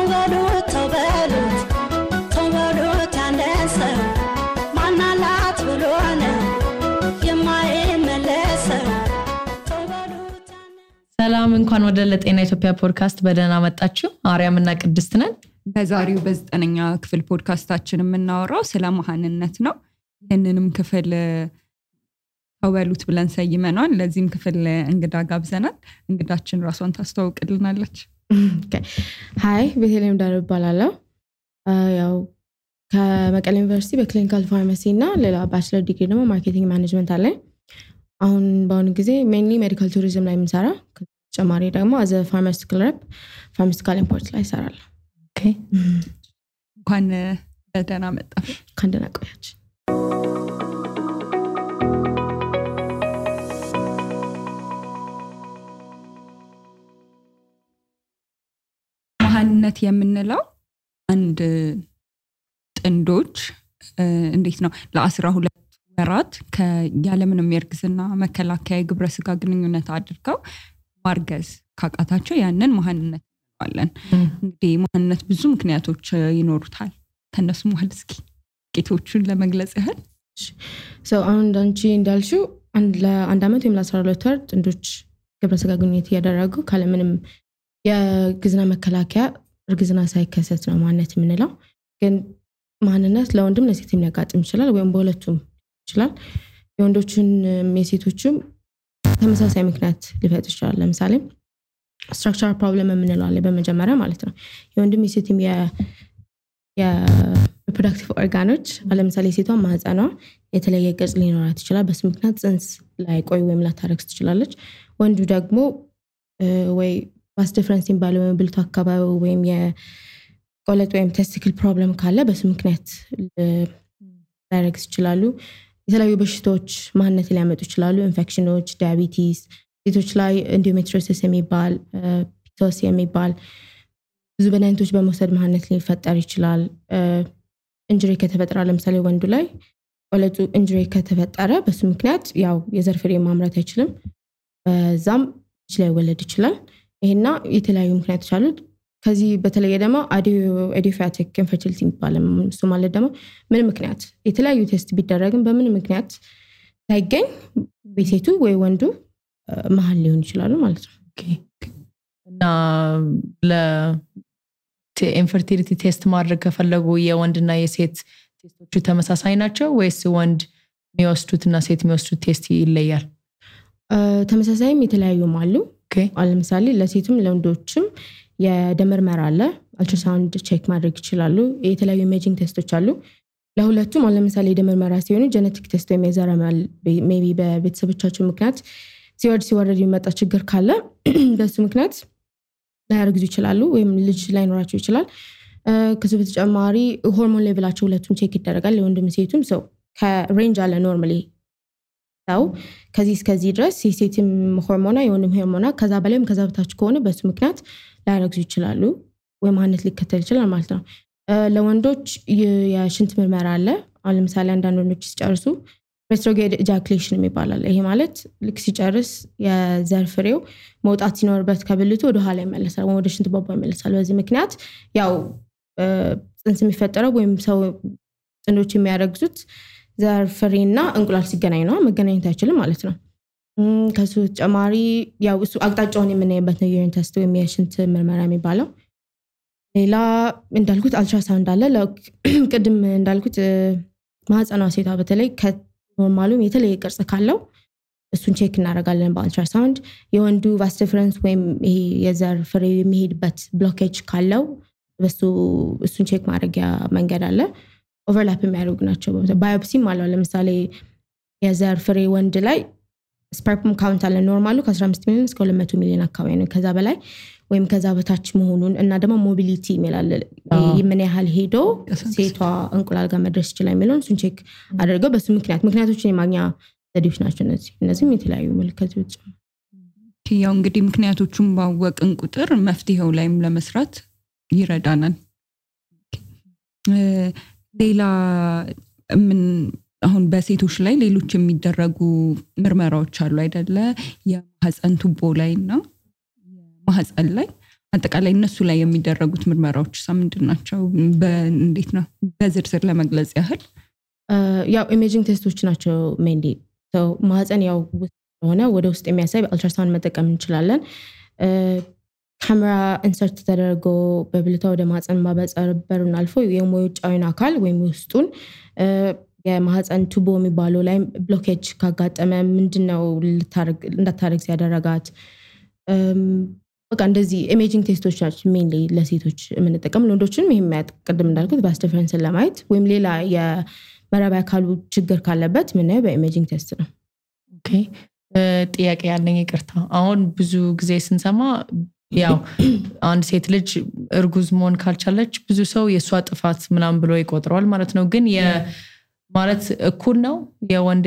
ተበሉት ያንደሰው ማናላት ብሎነ የማይመለሰው ሰላም እንኳን ወደ ለጤና ኢትዮጵያ ፖድካስት በደህና መጣችሁ አርያምና ቅድስት ነን በዛሬው በ9ኛ ክፍል ፖድካስታችን የምናወራው ስለ መሃንነት ነው ይሄንንም ክፍል ተበሉት ብለን ሰይመናል ለዚህም ክፍል እንግዳ ጋብዘናል እንግዳችን ራሷን ታስተዋውቅልናለች ሃይ ቤተልሔም ዳር ይባላል ያው ከመቀሌ ዩኒቨርሲቲ በክሊኒካል ፋርማሲ እና ሌላ ባችለር ዲግሪ ደግሞ ማርኬቲንግ ማኔጅመንት አለ አሁን በአሁኑ ጊዜ ሜንሊ ሜዲካል ቱሪዝም ላይ የምሰራ ተጨማሪ ደግሞ አዘ ፋርማሲቲካል ሬፕ ፋርማሲቲካል ኢምፖርት ላይ እሰራለሁ ኦኬ እንኳን ደህና መጣሽ ካንደና ቆያች መሃንነት የምንለው አንድ ጥንዶች እንዴት ነው ለ12 ወራት ከያለምንም የርግዝና መከላከያ ግብረ ስጋ ግንኙነት አድርገው ማርገዝ ካቃታቸው ያንን መሃንነት እንለዋለን እንግዲህ መሃንነት ብዙ ምክንያቶች ይኖሩታል ከነሱ መሃል እስኪ ጥቂቶቹን ለመግለጽ ያህል አሁን ዳንቺ እንዳልሽው ለአንድ አመት ወይም ለ12 ወር ጥንዶች ግብረ ስጋ ግንኙነት ያደረጉ ካለምንም የግዝና መከላከያ እርግዝና ሳይከሰት ነው ማንነት የምንለው ግን ማንነት ለወንድም ለሴትም ሊያጋጥም ይችላል ወይም በሁለቱም ይችላል የወንዶችን የሴቶችም ተመሳሳይ ምክንያት ሊፈጥር ይችላል ለምሳሌ ስትራክቸራል ፕሮብለም የምንለው አለ በመጀመሪያ ማለት ነው የወንድም የሴትም የሪፕሮዳክቲቭ ኦርጋኖች ለምሳሌ ሴቷ ማህፀኗ የተለየ ቅርጽ ሊኖራት ይችላል በሱ ምክንያት ጽንስ ላይ ቆይ ወይም ላታረግዝ ትችላለች ወንዱ ደግሞ ወይ ባስ ዲፈረንስ ኢምባላንስ ወይም ብልቱ አካባቢ ወይም የቆለጥ ወይም ቴስቲክል ፕሮብለም ካለ በሱ ምክንያት ላያረግዝ ይችላሉ የተለያዩ በሽታዎች ማንነት ሊያመጡ ይችላሉ ኢንፌክሽኖች ዳያቢቲስ ሴቶች ላይ ኢንዶሜትሪዮሲስ የሚባል ፒቶስ የሚባል ብዙ በናይንቶች በመውሰድ ማንነት ሊፈጠር ይችላል ኢንጁሪ ከተፈጠረ ለምሳሌ ወንዱ ላይ ቆለጡ ኢንጁሪ ከተፈጠረ በሱ ምክንያት ያው የዘር ፍሬ ማምረት አይችልም በዛም ላይ ወለድ ይችላል ይሄና የተለያዩ ምክንያቶች አሉት ከዚህ በተለየ ደግሞ ኢዲዮፓቲክ ኢንፈርቲሊቲ የሚባለው እሱ ማለት ደግሞ ምን ምክንያት የተለያዩ ቴስት ቢደረግም በምን ምክንያት ሳይገኝ በሴቱ ወይ ወንዱ መሃል ሊሆን ይችላል ማለት ነው ኦኬ እና ኢንፈርቲሊቲ ቴስት ማድረግ ከፈለጉ የወንድና የሴት ቴስቶቹ ተመሳሳይ ናቸው ወይስ ወንድ የሚወስዱትና ሴት የሚወስዱት ቴስት ይለያል ተመሳሳይም የተለያዩም አሉ ለምሳሌ ለሴትም ለወንዶችም የደም ምርመራ አለ አልትራሳውንድ ቼክ ማድረግ ይችላሉ የተለያዩ ኢሜጂንግ ቴስቶች አሉ ለሁለቱም ለምሳሌ የደም ምርመራ ሲሆን ጄኔቲክ ቴስት ወይም የዘረመል ሜቢ በቤተሰቦቻቸው ምክንያት ሲወርድ ይመጣ ችግር ካለ በሱ ምክንያት ላያረግዙ ይችላሉ ወይም ልጅ ላይኖራቸው ይችላል ከዚህ በተጨማሪ ሆርሞን ሌቭላቸው ሁለቱም ቼክ ይደረጋል ለወንድም ሴቱም ሰው ከሬንጅ አለ ኖርማሊ ታው ከዚህ እስከዚህ ድረስ የሴትም ሆርሞና የወንድም ሆርሞና ከዛ በላይም ከዛ በታች ከሆነ በሱ ምክንያት ላያረግዙ ይችላሉ ወይ ማንነት ሊከተል ይችላል ማለት ነው ለወንዶች የሽንት ምርመራ አለ ለምሳሌ አንዳንድ ወንዶች ሲጨርሱ ሬትሮግሬድ ኢጃኩሌሽን ይባላል ይሄ ማለት ልክ ሲጨርስ የዘር ፍሬው መውጣት ሲኖርበት ከብልቱ ወደ ኋላ ይመለሳል ወደ ሽንት ቧንቧ ይመለሳል በዚህ ምክንያት ያው ጽንስ የሚፈጠረው ወይም ሰው ጥንዶች የሚያረግዙት ዘር ፍሬና እንቁላል ሲገናኝ ነው መገናኘት አይችልም ማለት ነው ከሱ ተጨማሪ ያው እሱ አቅጣጫውን የምናይበት ነው ዩሪን ቴስት ወይም የሽንት ምርመራ የሚባለው ሌላ እንዳልኩት አልትራሳውንድ አለ ቅድም እንዳልኩት ማህፀኗ ሴቷ በተለይ ከኖርማሉም የተለየ ቅርጽ ካለው እሱን ቼክ እናደርጋለን በአልትራሳውንድ የወንዱ ቫስ ዲፈረንስ ወይም ይሄ የዘር ፍሬ የሚሄድበት ብሎኬጅ ካለው እሱን ቼክ ማድረጊያ መንገድ አለ ኦቨርላፕ የሚያደርጉ ናቸው ባዮፕሲም አለው ለምሳሌ የዘር ፍሬ ወንድ ላይ ስፐርም ካውንት አለ ኖርማሉ ከ15 ሚሊዮን እስከ 200 ሚሊዮን አካባቢ ነው ከዛ በላይ ወይም ከዛ በታች መሆኑን እና ደግሞ ሞቢሊቲ ይላል ምን ያህል ሄዶ ሴቷ እንቁላል ጋር መድረስ ይችላል የሚለውን እሱን ቼክ አድርገው በሱ ምክንያቶችን የማግኛ ዘዴዎች ናቸው እነዚህም የተለያዩ ምልክቶች ያው እንግዲህ ምክንያቶቹን ባወቅን ቁጥር መፍትሄው ላይም ለመስራት ይረዳናል ሌላ ምን አሁን በሴቶች ላይ ሌሎች የሚደረጉ ምርመራዎች አሉ አይደለ የማህፀን ቱቦ ላይና የማህፀን ላይ አጠቃላይ እነሱ ላይ የሚደረጉት ምርመራዎች ምንድናቸው እንዴት ነው በዝርዝር ለመግለጽ ያህል ያው ኢሜጂንግ ቴስቶች ናቸው ሜንሊ ማህፀን ያው ሆነ ወደ ውስጥ የሚያሳይ አልትራሳውንድ መጠቀም እንችላለን ካሜራ ኢንሰርት ተደርጎ በብልታ ወደ ማህፀን ማበጸር በሩን አልፎ የሞዩጫዊን አካል ወይም ውስጡን የማህፀን ቱቦ የሚባለው ላይ ብሎኬጅ ካጋጠመ ምንድነው እንዳታረግ ያደረጋት በቃ እንደዚህ ኢሜጂንግ ቴስቶች ናቸው ሜንሊ ለሴቶች የምንጠቀም ለወንዶችንም ይሄም ቅድም እንዳልኩት ቫስ ዲፈረንስን ለማየት ወይም ሌላ የመራቢያ አካሉ ችግር ካለበት ምን በኢሜጂንግ ቴስት ነው ኦኬ ጥያቄ ያለኝ ይቅርታ አሁን ብዙ ጊዜ ስንሰማ ያው አንድ ሴት ልጅ እርጉዝ መሆን ካልቻለች ብዙ ሰው የሷ ጥፋት ምናምን ብሎ ይቆጥራል ማለት ነው ግን ማለት እኩል ነው የወንድ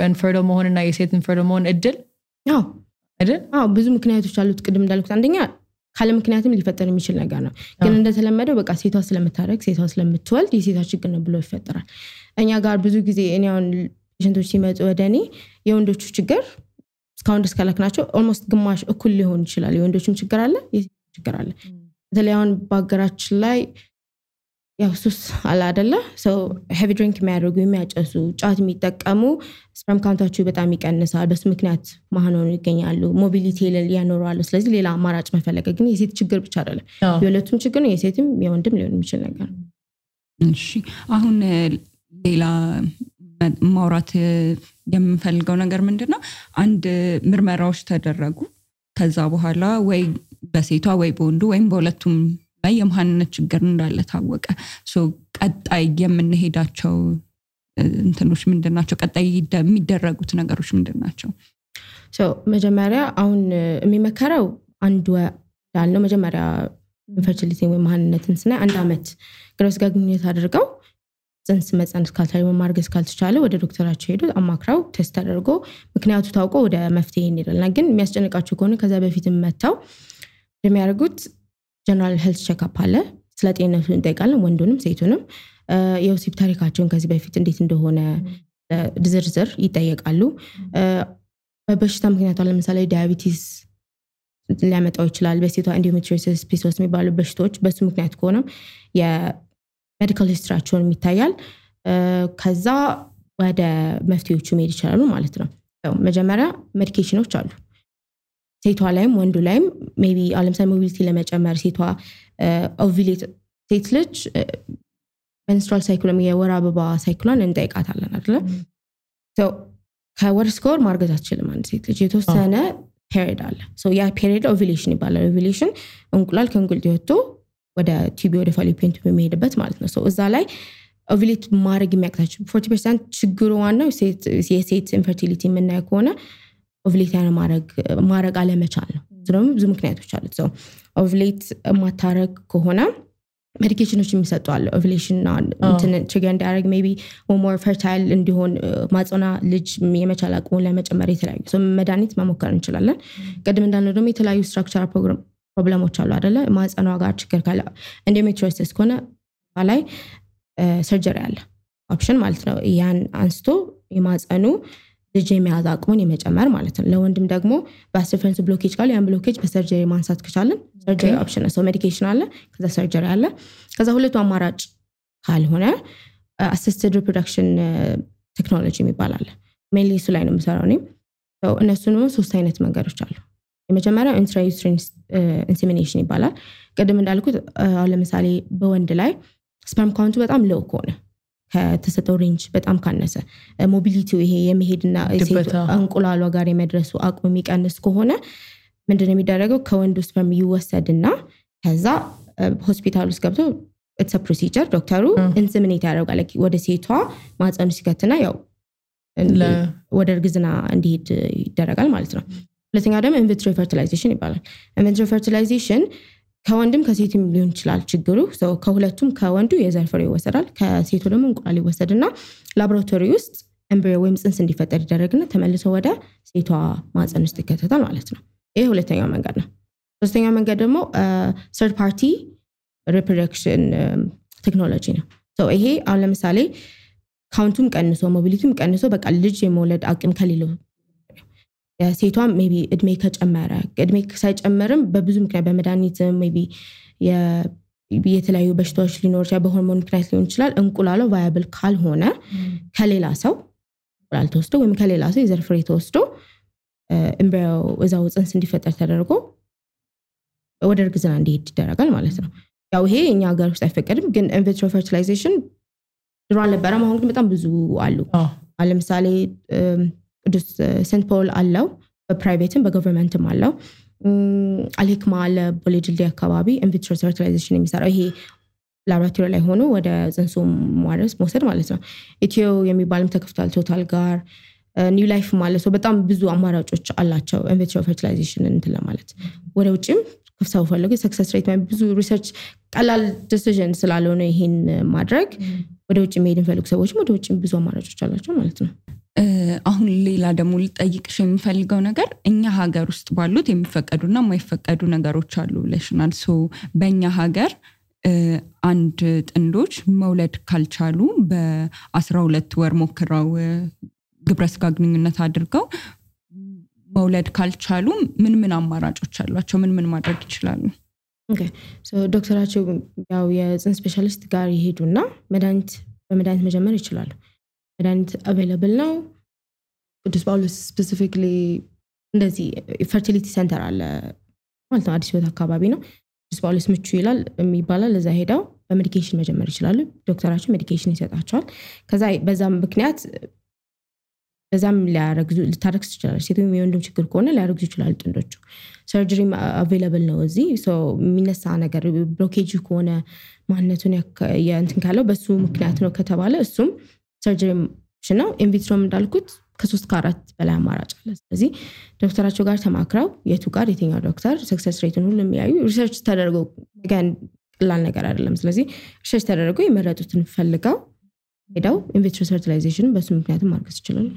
ኢንፈርቲል መሆንና የሴት ኢንፈርቲል መሆን እድል አዎ አይደል ብዙ ምክንያቶች አሉት ቅድም እንዳልኩት አንደኛ ካለ ምክንያትም ሊፈጠር የሚችል ነገር ነው ግን እንደተለመደው በቃ ሴቷ ስለምታረግ ሴቷ ስለምትወልድ የሴቷ ችግር ነው ብሎ ይፈጠራል እኛ ጋር ብዙ ጊዜ እኔውን ፔሸንቶች ሲመጡ ወደኔ የወንዶቹ ችግር እስካሁን ድረስ ካላክናቸው ኦልሞስት ግማሽ እኩል ሊሆን ይችላል የወንዶችም ችግር አለ የሴቶችም ችግር አለ በተለይ አሁን በአገራችን ላይ ያው ሱስ አለ አይደለ ሶ ሄቪ ድሪንክ የሚያደርጉ የሚያጨሱ ጫት የሚጠቀሙ ስፐርም ካውንታቸው በጣም ይቀንሳል በሱ ምክንያት ማህኖኑ ይገኛሉ ሞቢሊቲ ያኖራሉ ስለዚህ ሌላ አማራጭ መፈለግ ግን የሴት ችግር ብቻ አይደለም የሁለቱም ችግር ነው የሴትም የወንድም ሊሆን የሚችል ነገር እሺ አሁን ሌላ ማውራት የምፈልገው ነገር ምንድነው አንድ ምርመራዎች ተደረጉ ከዛ በኋላ ወይ በሴቷ ወይ በወንዱ ወይም በሁለቱም ላይ የማንነት ችግር እንዳለ ታወቀ ሶ ቀጣይ የምንሄዳቸው እንትኖች ምንድናቸው ቀጣይ የሚደረጉት ነገሮች ምንድናቸው ሶ መጀመሪያ አሁን የሚመከረው አንድ ያለው መጀመሪያ ኢንፈርቲሊቲ ወይ ማንነትን ስናይ 1 አመት ግብረ ስጋ ግንኙነት አድርገው ጽንስ መጸነስ ካልቻለ ማርገዝ ካልተቻለ ወደ ዶክተራቸው ሄዶ አማክራው ቴስት አድርጎ ምክንያቱ ታውቆ ወደ መፍትሄ ይሄዳልና ግን የሚያስጨንቃቸው ከሆነ ከዛ በፊት መጣው የሚያደርጉት ጀነራል ሄልዝ ቼክአፕ አለ ስለ ጤንነቱ እንጠይቃለን ወንዱንም ሴቱንም የወሲብ ታሪካቸውን ከዚህ በፊት እንዴት እንደሆነ ዝርዝር ይጠየቃሉ በበሽታ ምክንያት ለምሳሌ ዳያቢቲስ ሊያመጣው ይችላል በሴቷ ኢንዶሜትሪዮሲስ ፒሲኦስ የሚባሉ በሽታዎች በሱ ምክንያት ከሆነ የሜዲካል ሂስትሪያቸውን የሚታያል ከዛ ወደ መፍትሄዎቹ መሄድ ይችላሉ ማለት ነው መጀመሪያ ሜዲኬሽኖች አሉ ሴቷ ላይም ወንዱ ላይም ሜቢ ለምሳሌ ሞቢሊቲ ለመጨመር ሴቷ ኦቪሌት ሴት ልጅ menstrual cycle የወር አበባ ሳይክሏን እንጠይቃታለን አይደል ከወር እስከ ወር ማርገዝ አትችልም አንድ ሴት ልጅ የተወሰነ ፔሪድ አለ ያ ፔሪድ ኦቪሌሽን ይባላል ኦቪሌሽን እንቁላል ከእንቁልት ወጥቶ ወደ ቲቢ ወደ ፋሊፒየን ቲቢ የሚሄድበት ማለት ነው እዛ ላይ ኦቪሌት ማድረግ የሚያቅታቸው 40% ችግሩ ዋናው የሴት ኢንፈርቲሊቲ የምናየው ከሆነ ኦቪሌት ማድረግ አለመቻል ነው ስለዚህ ብዙ ምክንያቶች አሉት ኦቪሌት ማታረግ ከሆነ ሜዲኬሽኖች የሚሰጡ አለ ኦቪሌሽን እንትን ትሪገር እንዲያደርግ ሜቢ ሞር ፈርታይል እንዲሆን ማጽና ልጅ የመቻል አቅሙን ለመጨመር የተለያዩ መድኃኒት መሞከር እንችላለን ቅድም እንዳልነው ደግሞ የተለያዩ ስትራክቸራል ፕሮብለሞች አሉ አይደለ ማጽኗ ጋር ችግር ካለ ኢንዶሜትሪዮሲስ ከሆነ ላይ ሰርጀሪ አለ ኦፕሽን ማለት ነው ያን አንስቶ የማጽኑ ልጅ የሚያዝ አቅሙን የመጨመር ማለት ነው ለወንድም ደግሞ ቫስ ዲፈረንስ ብሎኬጅ ካለ ያን ብሎኬጅ በሰርጀሪ ማንሳት ከቻለን ሰርጀሪ ኦፕሽን ነው ሜዲኬሽን አለ ከዛ ሰርጀሪ አለ ከዛ ሁለቱ አማራጭ ካልሆነ አሲስትድ ሪፕሮዳክሽን ቴክኖሎጂ የሚባል አለ ሜንሊ እሱ ላይ ነው የምሰራው እኔ እነሱንም 3 አይነት መንገዶች አሉ የመጀመሪያው ኢንትራዩትሪን ኢንሴሚኔሽን ይባላል ቅድም እንዳልኩት ለምሳሌ በወንድ ላይ ስፐርም ካውንቱ በጣም ሎው ከሆነ ከተሰጠው ሬንጅ በጣም ካነሰ ሞቢሊቲው ይሄ የመሄድና እንቁላሏ ጋር የመድረሱ አቅሙ የሚቀንስ ከሆነ ምንድነው የሚደረገው ከወንዱ ስፐርም ይወሰድና ከዛ ሆስፒታል ውስጥ ገብቶ it's a procedure ዶክተሩ ኢንሰሚኔት ያደርጋል ወደ ሴቷ ማህፀኑ ሲከትና ያው ወደ እርግዝና እንዲሄድ ይደረጋል ማለት ነው ሁለተኛው ደግሞ ኢንቪትሮ ፈርቲላይዜሽን ይባላል ኢንቪትሮ ፈርቲላይዜሽን ከወንድም ከሴትም ሊሆን ይችላል ችግሩ ከሁለቱም ከወንዱ የዘር ፍሬ ይወሰዳል ከሴቱ ደግሞ እንቁላል ይወሰድና ላቦራቶሪ ውስጥ ኤምብሪዮ ወይም ጽንስ እንዲፈጠር ይደረግና ተመልሶ ወደ ሴቷ ማህፀን ውስጥ ይከተታል ማለት ነው ይሄ ሁለተኛው መንገድ ነው ሶስተኛው መንገድ ደግሞ third party reproduction ቴክኖሎጂ ነው ይሄ አሁን ለምሳሌ ካውንቱም ቀንሶ ሞቢሊቲም ቀንሶ በቃ ልጅ የመውለድ አቅም ከሌለው የሴቷም ሜቢ እድሜ ከጨመረ እድሜ ሳይጨመርም በብዙ ምክንያት በመድኃኒት ሜቢ የተለያዩ በሽታዎች ሊኖር ይችላል በሆርሞን ምክንያት ሊሆን ይችላል እንቁላሉ ቫያብል ካልሆነ ከሌላ ሰው እንቁላል ተወስዶ ወይም ከሌላ ሰው የዘር ፍሬ ተወስዶ ኤምብሪዮ እዛው ጽንስ እንዲፈጠር ተደርጎ ወደ እርግዝና እንዲሄድ ይደረጋል ማለት ነው ያው ይሄ እኛ ሀገር ውስጥ አይፈቀድም ግን ኢንቪትሮ ፈርቲላይዜሽን ድሮ አልነበረም አሁን ግን በጣም ብዙ አሉ ለምሳሌ ቅዱስ ሴንት ፖል አለው በፕራይቬትም በገቨርንመንትም አለው አልሂክማ አለ ቦሌጅልዲ አካባቢ ኢንቪትሮ ፈርቲላይዜሽን የሚሰራው ይሄ ላቦራቶሪ ላይ ሆኖ ወደ ጽንሱ ማድረስ መውሰድ ማለት ነው ኢትዮ የሚባልም ተከፍቷል ቶታል ጋር ኒው ላይፍ ማለት ነው በጣም ብዙ አማራጮች አላቸው ኢንቪትሮ ፈርቲላይዜሽን እንትን ለማለት ወደ ውጭም ከፍሳው ፈልጉ ሰክሰስ ሬት ማለት ብዙ ሪሰርች ቀላል ዲሲዥን ስላልሆነ ይሄን ማድረግ ወደ ውጭ መሄድ ፈልጉ ሰዎችም ወደ ውጭ ብዙ አማራጮች አላቸው ማለት ነው አሁን ሌላ ደግሞ ልጠይቅሽ የምፈልገው ነገር እኛ ሀገር ውስጥ ባሉት የሚፈቀዱና የማይፈቀዱ ነገሮች አሉ ብለሽናል ሶ በእኛ ሀገር አንድ ጥንዶች መውለድ ካልቻሉ በ12 ወር ሞክረው ግብረ ስጋ ግንኙነት አድርገው መውለድ ካልቻሉ ምን አማራጮች አሏቸው ምን ማድረግ ይችላሉ ኦኬ ሶ ዶክተራቸው ያው የጽንስ ስፔሻሊስት ጋር ይሄዱና በመድኃኒት መጀመር ይችላሉ መድኃኒት አቬይላብል ነው ቅዱስ ጳውሎስ ስፔሲፊካሊ እንደዚህ ፈርቲሊቲ ሴንተር አለ ማለት ነው አዲስ ህይወት አካባቢ ነው ቅዱስ ጳውሎስ ምቹ ይላል የሚባላል ለዛ ሄዳው በሜዲኬሽን መጀመር ይችላሉ ዶክተራቸው ሜዲኬሽን ይሰጣቸዋል ከዛ በዛም ምክንያት በዛም ልታረክስ ይችላል ሴቱም የወንድም ችግር ከሆነ ሊያረክሱ ይችላል ጥንዶቹ ሰርጀሪ አቬይላብል ነው እዚህ ሶ የሚነሳ ነገር ብሎኬጅ ከሆነ ማንነቱን እንትን ካለው በሱ ምክንያት ነው ከተባለ እሱም ሰርጀሪ ነው ኢንቪትሮም እንዳልኩት ከ3 ከ4 በላይ አማራጭ አለ ስለዚህ ዶክተራቸው ጋር ተማክረው የቱ ጋር የትኛው ዶክተር ሰክሰስ ሬቱን ሁሉ የሚያዩ ሪሰርች ተደርገው ጋር ቀላል ነገር አይደለም ስለዚህ ሪሰርች ተደርገው የመረጡትን ፈልገው ሄደው ኢንቪትሮ ፈርቲላይዜሽን በሱ ምክንያቱም ማርገዝ ይችላል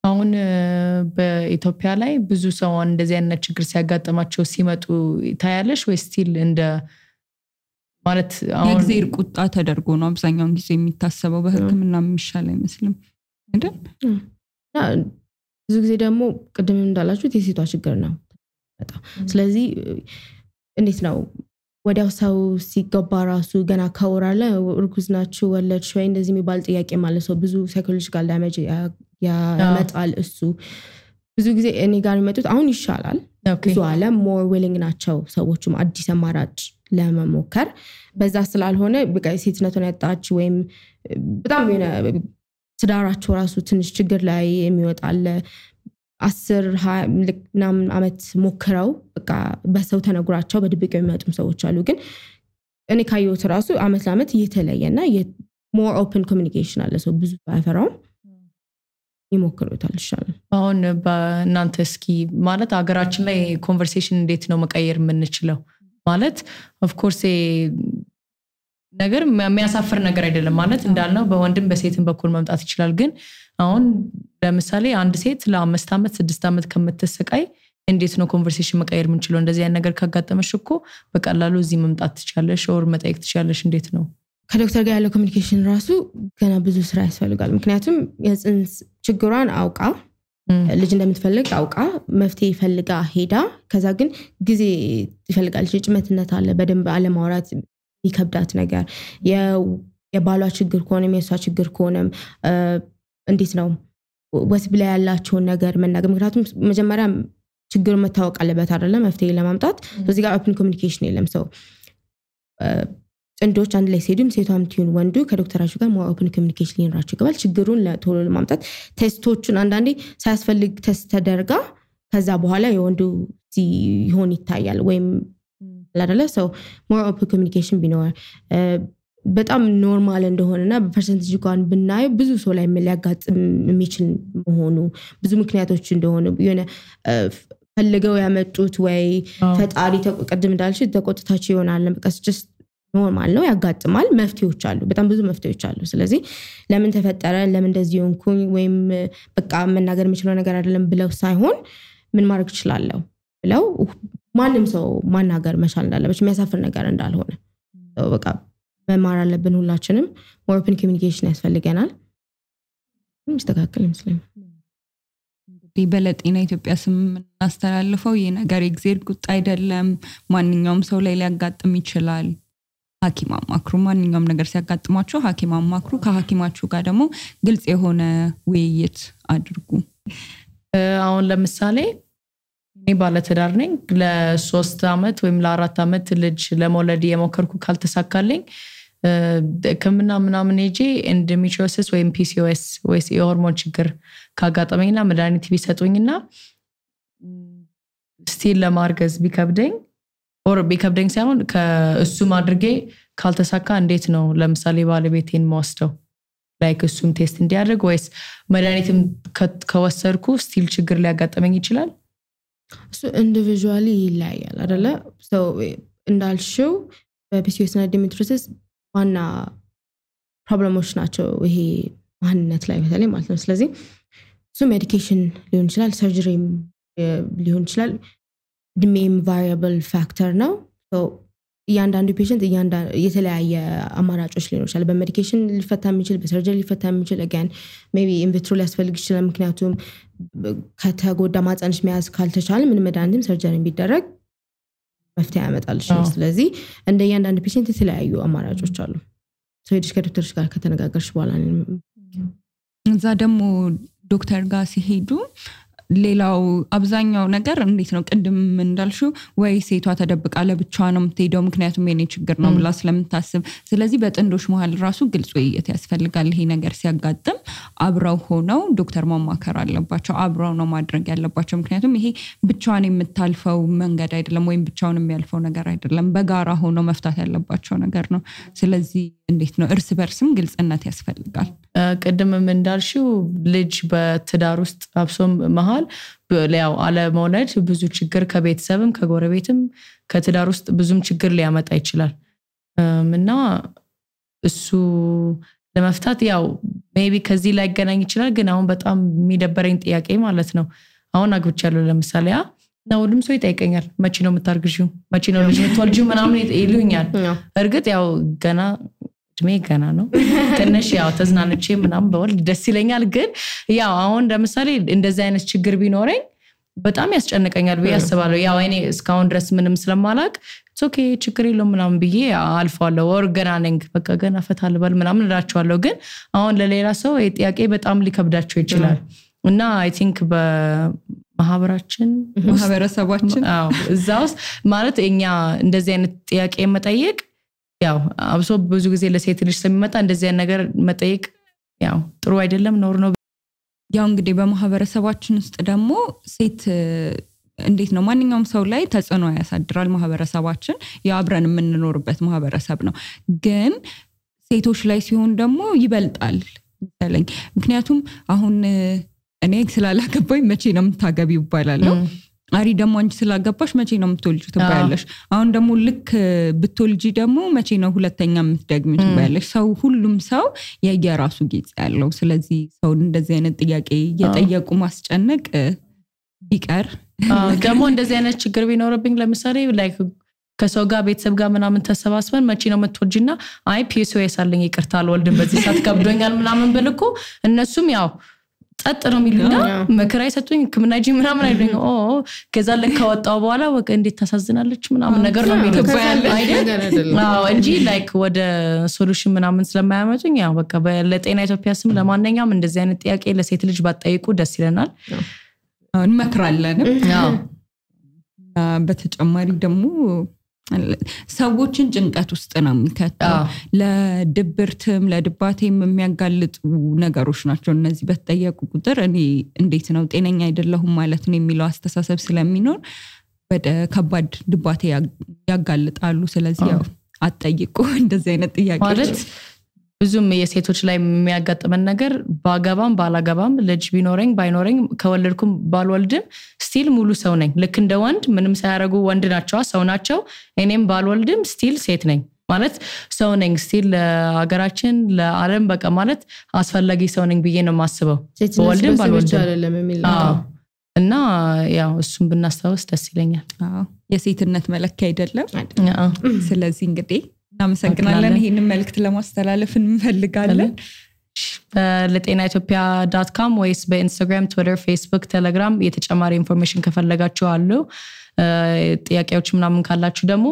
አሁን በኢትዮጵያ ላይ ብዙ ሰው እንደዚህ አይነት ችግር ሲያጋጥማቸው ሲመጡ ታያለሽ ወይ ስቲል እንደ ማለት አሁን የእግዚአብሔር ቁጣ ተደርጎ ነው አብዛኛውን ጊዜ የሚታሰበው በህክምና የሚሻል አይመስልም አይደል ብዙ ጊዜ ደግሞ ቅድም እንዳላችሁት የሴቷ ችግር ነው በጣም ስለዚህ እንዴት ነው ወዲያው ሰው ሲገባ ራሱ ገና ካወራለ እርጉዝ ናችሁ ወለድሽ ወይ እንደዚህ የሚባል ጥያቄ ማለት ነው ብዙ ሳይኮሎጂካል ዳሜጅ ያመጣል እሱ ብዙ ጊዜ እኔ ጋር የሚመጡት አሁን ይሻላል ብዙ አለ ሞር ዊሊንግ ናቸው ሰዎችም አዲስ አማራጭ ለመሞከር በዛ ስላልሆነ በቃ ሴትነቱን ያጣች ወይም በጣም ትዳራቸው ራሱ ትንሽ ችግር ላይ የሚወጣል 10 ምናምን አመት ሞክረው በቃ በሰው ተነግራቸው በድብቅ የሚመጡም ሰዎች አሉ ግን እኔ ካየሁት ራሱ አመት ለአመት እየተለየና ሞር ኦፕን ኮሚኒኬሽን አለ ሰው ብዙ ባይፈራው ይሞክሩታል ይሻላል አሁን በእናንተ እስኪ ማለት ሀገራችን ላይ ኮንቨርሴሽን እንዴት ነው መቀየር የምንችለው ማለት ኦፍ ኮርስ ነገር የሚያሳፍር ነገር አይደለም ማለት እንዳልነው በወንድም በሴትም በኩል መምጣት ይችላል ግን አሁን ለምሳሌ አንድ ሴት ለ5 አመት 6 አመት ከምትሰቃይ እንዴት ነው ኮንቨርሴሽን መቀየር የምንችለው እንደዚህ አይነት ነገር ካጋጠመሽ እኮ በቀላሉ እዚህ መምጣት ትችላለሽ ኦር መጠየቅ ትችላለሽ እንዴት ነው ከዶክተር ጋር ያለው ኮሚኒኬሽን ራሱ ገና ብዙ ስራ ያስፈልጋል ምክንያቱም የጽንስ ችግሯን አውቃ ልጅ እንደምትፈልግ አውቃ መፍትሄ ፈልጋ ሄዳ ከዛ ግን ጊዜ ይፈልጋል ጭምትነት አለ በደንብ አለማውራት ይከብዳት ነገር የባሏ ችግር ከሆነ የሷ ችግር ከሆነ እንዴት ነው ወስብ ላይ ያላቸው ነገር መናገር ምክንያቱም መጀመሪያ ችግሩ መታወቅ አለበት አይደለ መፍትሄ ለማምጣት ስለዚህ ጋር ኦፕን ኮሚኒኬሽን የለም ሰው ጥንዶች አንድ ላይ ሲሄዱም ሴቷም ትሁን ወንዱ ከዶክተራቸው ጋር ኦፕን ኮሚኒኬሽን ሊኖራቸው ይገባል ችግሩን ለቶሎ ለማምጣት ቴስቶቹን አንዳንዴ ሳያስፈልግ ቴስት ተደርጋ ከዛ በኋላ የወንዱ ይሆን ይታያል ወይም አይደለ ሰው ሞር ኦፕን ኮሚኒኬሽን ቢኖር በጣም ኖርማል እንደሆነና በፐርሰንቴጅ እንኳን ብናይ ብዙ ሰው ላይ ሊያጋጥም የሚችል መሆኑ ብዙ ምክንያቶች እንደሆነ የሆነ ፈልገው ያመጡት ወይ ፈጣሪ ተቀድም እንዳልሽ ተቆጥታቸው ይሆናል በቃ just ኖርማል ነው ያጋጥማል መፍትሄዎች አሉ በጣም ብዙ መፍትሄዎች አሉ ስለዚህ ለምን ተፈጠረ ለምን እንደዚህ ሆንኩኝ ወይም በቃ መናገር የምችለው ነገር አይደለም ብለው ሳይሆን ምን ማድረግ ይችላል ብለው ማንም ሰው ማናገር መቻል እንዳለበት የሚያሳፍር ነገር እንዳልሆነ በቃ መማር አለብን ሁላችንም ኦፕን ኮሚኒኬሽን ያስፈልገናል ምስተካከል ይመስለኛል በለጤና ኢትዮጵያ ስም እናስተላልፈው ይሄ ነገር እግዚአብሔር ቁጣ አይደለም ማንኛውም ሰው ላይ ሊያጋጥም ይችላል ሐኪም አማክሩ ማንኛውም ነገር ሲያጋጥማችሁ ሐኪም አማክሩ ከሐኪማችሁ ጋር ደግሞ ግልጽ የሆነ ውይይት አድርጉ አሁን ለምሳሌ እኔ ባለትዳር ነኝ ለ3 አመት ወይም ለ4 አመት ልጅ ለመውለድ የሞከርኩ ካልተሳካልኝ ከመና ምናምን እጄ ኢንዶሜትሪዮሲስ ወይም PCOS ወይስ የሆርሞን ችግር ካጋጠመኝና መድኃኒት ቢሰጡኝና ስቲል ለማርገዝ ቢከብደኝ ሳይሆን ከእሱ ማድረጌ ካልተሳካ እንዴት ነው ለምሳሌ ባለቤቴን ማስተው ላይክ እሱም ቴስት እንዲያደርግ ወይስ መድኃኒትም ከወሰድኩ ስቲል ችግር ሊያጋጠመኝ ይችላል እሱ ኢንዲቪጁዋሊ ይለያያል አይደለ so እንዳልሽው በPCOS እና ኢንዶሜትሪዮሲስ ዋና ፕሮብሌሞች ናቸው ይሄ ማንነት ላይ በተለይ ማለት ነው ስለዚህ እሱ ሜዲኬሽን ሊሆን ይችላል ሰርጀሪም ሊሆን ይችላል ድሜም ቫሪያብል ፋክተር ነው so እያንዳንዱ ፔሸንት የተለያየ አማራጮች ሊኖር ይችላል በሜዲኬሽን ሊፈታ የሚችል በሰርጀሪ ሊፈታ የሚችል again maybe in vitro ሊያስፈልግ ይችላል ምክንያቱም ከተጎዳ ማጽንሽ መያዝ ካልተቻለ ምን መድኃኒትም ሰርጀሪ ቢደረግ መፍትሄ ያመጣልሽ ስለዚህ እንደ እያንዳንዱ ፔሸንት የተለያዩ አማራጮች አሉ so ሄድሽ ከዶክተርሽ ጋር ከተነጋገርሽ በኋላ እዛ ደግሞ ዶክተር ጋር ሲሄዱ ሌላው አብዛኛው ነገር እንዴት ነው ቅድም እንዳልሽው ወይ ሴቷ ተደብቃ ለብቻዋ ነው የምትሄደው ምክንያቱም የኔ ችግር ነው ብላ ስለምታስብ ስለዚህ በጥንዶች መሃል ራሱ ግልጽ ውይይት ያስፈልጋል ይሄ ነገር ሲያጋጥም አብረው ሆነው ዶክተር ማማከር አለባቸው አብረው ነው ማድረግ ያለባቸው ምክንያቱም ይሄ ብቻዋን የምታልፈው መንገድ አይደለም ወይም ብቻውን የሚያልፈው ነገር አይደለም በጋራ ሆነው መፍታት ያለባቸው ነገር ነው ስለዚህ እንዴት ነው እርስ በርስም ግልጽነት ያስፈልጋል ቀደምም እንዳልሽው ልጅ በትዳር ውስጥ አብሶም መሃል ያው አለ መውለድ ብዙ ችግር ከቤተሰብም ከጎረቤትም ከትዳር ውስጥ ብዙም ችግር ሊያመጣ ይችላል እና እሱ ለመፍታት ያው ሜቢ ከዚህ ላይ ገናኝ ይችላል ግን አሁን በጣም የሚደበረኝ ጥያቄ ማለት ነው አሁን አግብቻለሁ ለምሳሌ ነው ሁሉም ሰው ይጠይቀኛል መቼ ነው የምታርግዢው መቼ ነው ልጅ የምትወልጂው ምናምን ይሉኛል እርግጥ ያው ገና ነው ትንሽ ያው ተዝናንቼ ምናምን በወልድ ደስ ይለኛል ግን ያው አሁን ለምሳሌ እንደዚህ አይነት ችግር ቢኖረኝ በጣም ያስጨንቀኛል ብዬ አስባለሁ ያው እኔ እስካሁን ድረስ ምንም ስለማላቅ ኦኬ ችግር የለውም ምናምን ብዬ አልፋለሁ ወር ገና ነኝ በቃ ገና ፈታልበል ምናምን እላቸዋለሁ ግን አሁን ለሌላ ሰው ጥያቄ በጣም ሊከብዳቸው ይችላል እና አይ ቲንክ ማህበረሰባችን እዛውስ ማለት እኛ እንደዚህ አይነት ጥያቄ መጠየቅ ያው አብሶ ብዙ ጊዜ ለሴት ልጅ ስለሚመጣ እንደዚህ አይነት ነገር መጠየቅ ያው ጥሩ አይደለም ኖር ነው ያው እንግዲህ በማህበረሰባችን ውስጥ ደግሞ ሴት እንዴት ነው ማንኛውም ሰው ላይ ተጽዕኖ ያሳድራል ማህበረሰባችን ያብረን የምንኖርበት ማህበረሰብ ነው ግን ሴቶች ላይ ሲሆን ደግሞ ይበልጣል ምክንያቱም አሁን እኔ ስላላገባኝ መቼ ነው የምታገቢው ይባላል አሪ ደግሞ አንቺ ስላገባሽ መቼ ነው የምትወልጂው ትባያለሽ አሁን ደግሞ ልክ ብትወልጂ ደግሞ መቼ ነው ሁለተኛ የምትደግሚው ትባያለሽ ሰው ሁሉም ሰው የየራሱ ጊዜ ያለው ስለዚህ ሰው እንደዚህ አይነት ጥያቄ እየጠየቁ ማስጨነቅ ቢቀር ደግሞ እንደዚህ አይነት ችግር ቢኖርብኝ ለምሳሌ ላይክ ከሰው ጋር ቤተሰብ ጋር ምናምን ተሰባስበን መቼ ነው የምትወልጂና አይ PCOS አለኝ ይቅርታ አልወልድም በዚህ ሰዓት ከብዶኛል ምናምን ብልኩ እነሱም ያው ጸጥ ነው የሚሉና መከራ ይሰጡኝ ከመናጂ ምናምን አይደኝ ከዛ ለከወጣው በኋላ ወቀ እንዴት ታሳዝናለች ምናምን ነገር ነው የሚሉት አይደል እንጂ ላይክ ወደ ሶሉሽን ምናምን ስለማያመጡኝ ያው በቃ ለጤና ኢትዮጵያ ስም ለማንኛውም እንደዚህ አይነት ጥያቄ ለሴት ልጅ ባጠይቁ ደስ ይለናል እንመክራለን በተጨማሪ ደግሞ ሰዎችን ጭንቀት ውስጥ ነው የሚከተው ለድብርትም ለድባቴም የሚያጋልጡ ነገሮች ናቸው እነዚህ በተጠየቁ ቁጥር እኔ እንዴት ነው ጤነኛ አይደለሁም ማለት ነው የሚለው አስተሳሰብ ስለሚኖር ወደ ከባድ ድባቴ ያጋልጣሉ ስለዚህ ያው አጠይቁ እንደዚህ አይነት ጥያቄዎች ማለት ብዙም የሴቶች ላይ የሚያጋጥመን ነገር ባገባም ባላገባም ልጅ ቢኖረኝ ባይኖረኝ ከወለድኩም ባልወልድም ስቲል ሙሉ ሰው ነኝ ልክ እንደ ወንድ ምንም ሳያረጉ ወንድ ናቸው ሰው ናቸው እኔም ባልወልድም ስቲል ሴት ነኝ ማለት ሰው ነኝ ስቲል ለሀገራችን ለዓለም በቃ ማለት አስፈላጊ ሰው ነኝ ብዬ ነው ማስበው ወልድም ባልወልድም እና ያው እሱም ብናስተዋወስ ደስ ይለኛል የሴትነት መለኪያ አይደለም ስለዚህ እንግዲህ እናመሰግናለን ይሄንን መልእክት ለማስተላለፍ እንፈልጋለን ለጤናኢትዮጵያ.com ወይስ በኢንስታግራም ትዊተር ፌስቡክ ቴሌግራም የተጨማሪ ኢንፎርሜሽን ከፈለጋችሁ አሉ ጥያቄዎች ምናምን ካላችሁ ደግሞ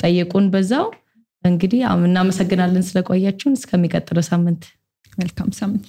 ጠይቁን በዛው እንግዲህ እናመሰግናለን ስለቆያችሁን እስከሚቀጥለው ሳምንት መልካም ሳምንት